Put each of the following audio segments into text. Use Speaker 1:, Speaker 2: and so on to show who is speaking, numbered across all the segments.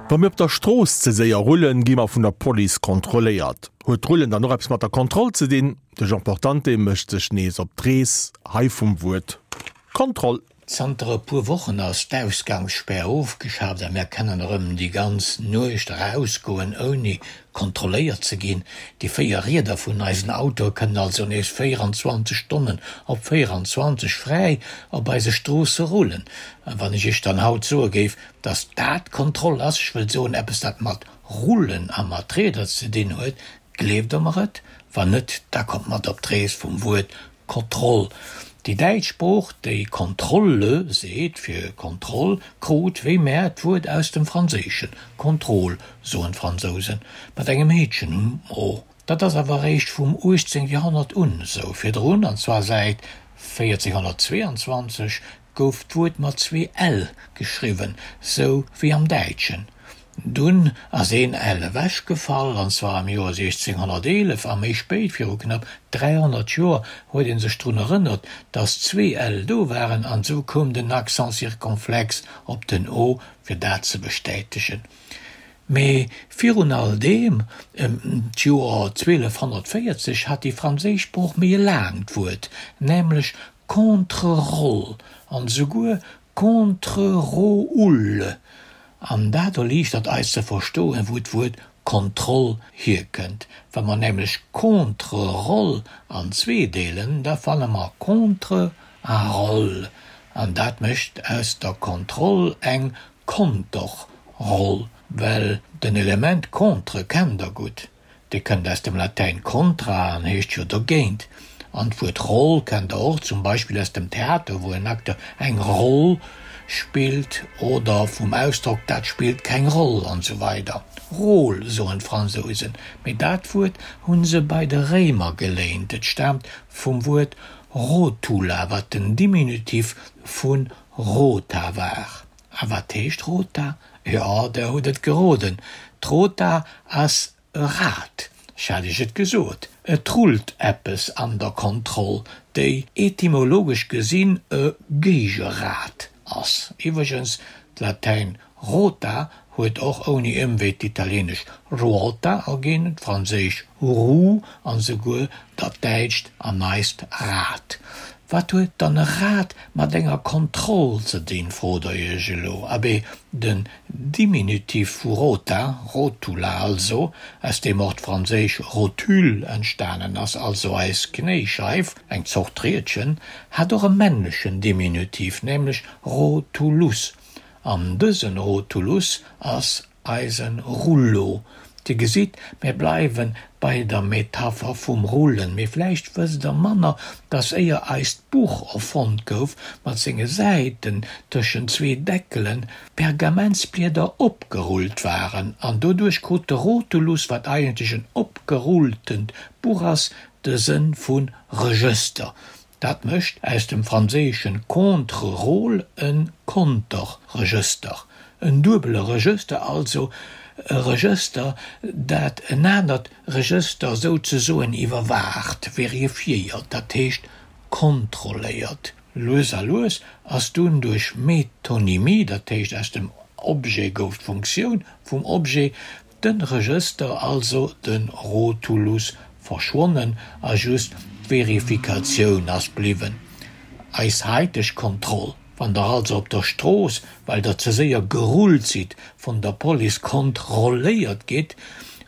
Speaker 1: Wa mir op der Strooss ze séier rullen, gi mer vun der Police kontrolléiert. Huet d'Rullen dann och eppes mat der Kontroll ze dinn? De Jean Portante mécht sech nees op d'Rees, hei vum Wuert Kontroll.
Speaker 2: Zanter e puer Wochen ass d'Ausgangsspär ofgeschaaft a mär kennen erëm déi ganz Nuecht erausgoen ouni kontrolléiert ze ginn. Déi 4 Rieder vun eisen Autoe kënnen also nees 24 Stonnen op 24 fräi op eise Stroosse rullen. A wann ech iech dann haut soe géif, dass dat Kontroll ass, ech wëll soen eppes dat mat Rullen a mat Rieder ze dinn huet, gleeft der mer et? Wann net, da kommt mat op d'Rees vum Wuert Kontroll. Déi däitsch Sprooch, déi Kontrolle seet fir Kontroll, krut, wéi mär, d'Wuert aus dem Franséischen, Contrôle soen d'Fransousen, mat engem Heetchen um o. Dat ass awer eréischt vum 18. Joerhonnert un esou. Virdrun, an zwar säit 1422, gouf d'Wuert mat zwee l geschriwwen, sou wéi am Däitschen. Dunn ass een l ewechgefall, an zwar am Joer 1611, a méi spéit, viru knapp 300 Joer, huet ee sech drun erënnert, datt zwee l do waren, an esou koum den Accent circonflexe op den o, fir dat ze bestätegen. Mee virun all deem, ëm d'Joer 1240, hat déi franséisch Sprooch méi e laangt Wuert, nämlech contre-rôle an esouguer contre-rôle. An dat erliichtert eis ze verstoen, wou d'Wuert Kontroll hierkënnt. Wa mer nämlech contre-rôle an zwee deelen, da fanne mer contre a rôle. An dat mécht aus der Kontroll eng Konterroll, well den Element contre kennt der gutt, dee kënnt aus dem Latäin contra an heescht jo dogéint. An d'Wuert Roll kennt der och, zum Beispill aus dem Theater, wou en Acteur eng Roll spillt, oder vum Ausdrock dat spillt keng Roll an esou weider. Rôle soen d'Fransousen, mee dat Wuert hu se bei de Réimer geléint, et staamt vum Wuert rotula, wat den Diminutif vu rota war. A wat heescht Rota? Jo, der hutt et geroden, d'Rota ass e Rad. Ech hat iech et gesot, et rullt eppes an der Kontroll, déi etymologesch gesinn e Géigerad ass. Iwwregens, d'Latäin rota huet och ouni Ëmwee d'italienesch ruota erginn, d'franséisch roue an esouguer dat däitscht an eist Rad. Wat huet dann e Rad mat enger Kontroll ze dinn, frot der iech elo. Abee, den Diminutiv vu rota, rotula also, aus deem och d'franséisch rotule entstanen ass, also eis Knéischeif, eng Zort Riedchen, hat och e männlechen Diminutiv, nämlech rotulus. An dësen Rotulus ass Eisen Rullo. Dir gesitt, mir bleiwen bei der Metapher vum Rullen. Mee vläicht wësst der manner, dass éier eist Buch erfonnt gouf, mat senge Säiten tëschent zwee Deckelen, Pergamentsblieder opgerullt waren. An doduerch krut de Rotulus, wat eigentlech en opgerulltent Buch ass, de Sënn vu Regëster. Dat mécht aus dem franséischen contre-rôle e Konterregëster, en duebele Regëster, also e Regëster, dat en anert Regëster souzesoen iwwerwaacht, verifiéiert, dat heescht kontrolléiert. Lues a lues ass dunn duerch Metonymie, dat heescht aus dem Objet gouf d'Funktioun vum Objet, Den Regëster, also de Rotulus, verschwonnen a just d'Verifikatioun ass bliwwen. Eis haiteg Kontroll, wann der also op der Strooss, well der ze séier gerullt sidd, vun der Police kontrolléiert gitt,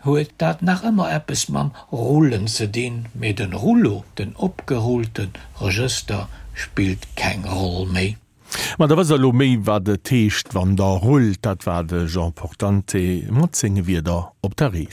Speaker 2: huet dat nach ëmmer eppes mam Rullen ze dinn, mee den Rullo, den opgerullten Regëster, spillt keng Roll méi.
Speaker 1: Ma da wësst der elo méi, wat et heescht, wann der rullt. Dat war de Jean Portante mat senge Wierder op der Rees.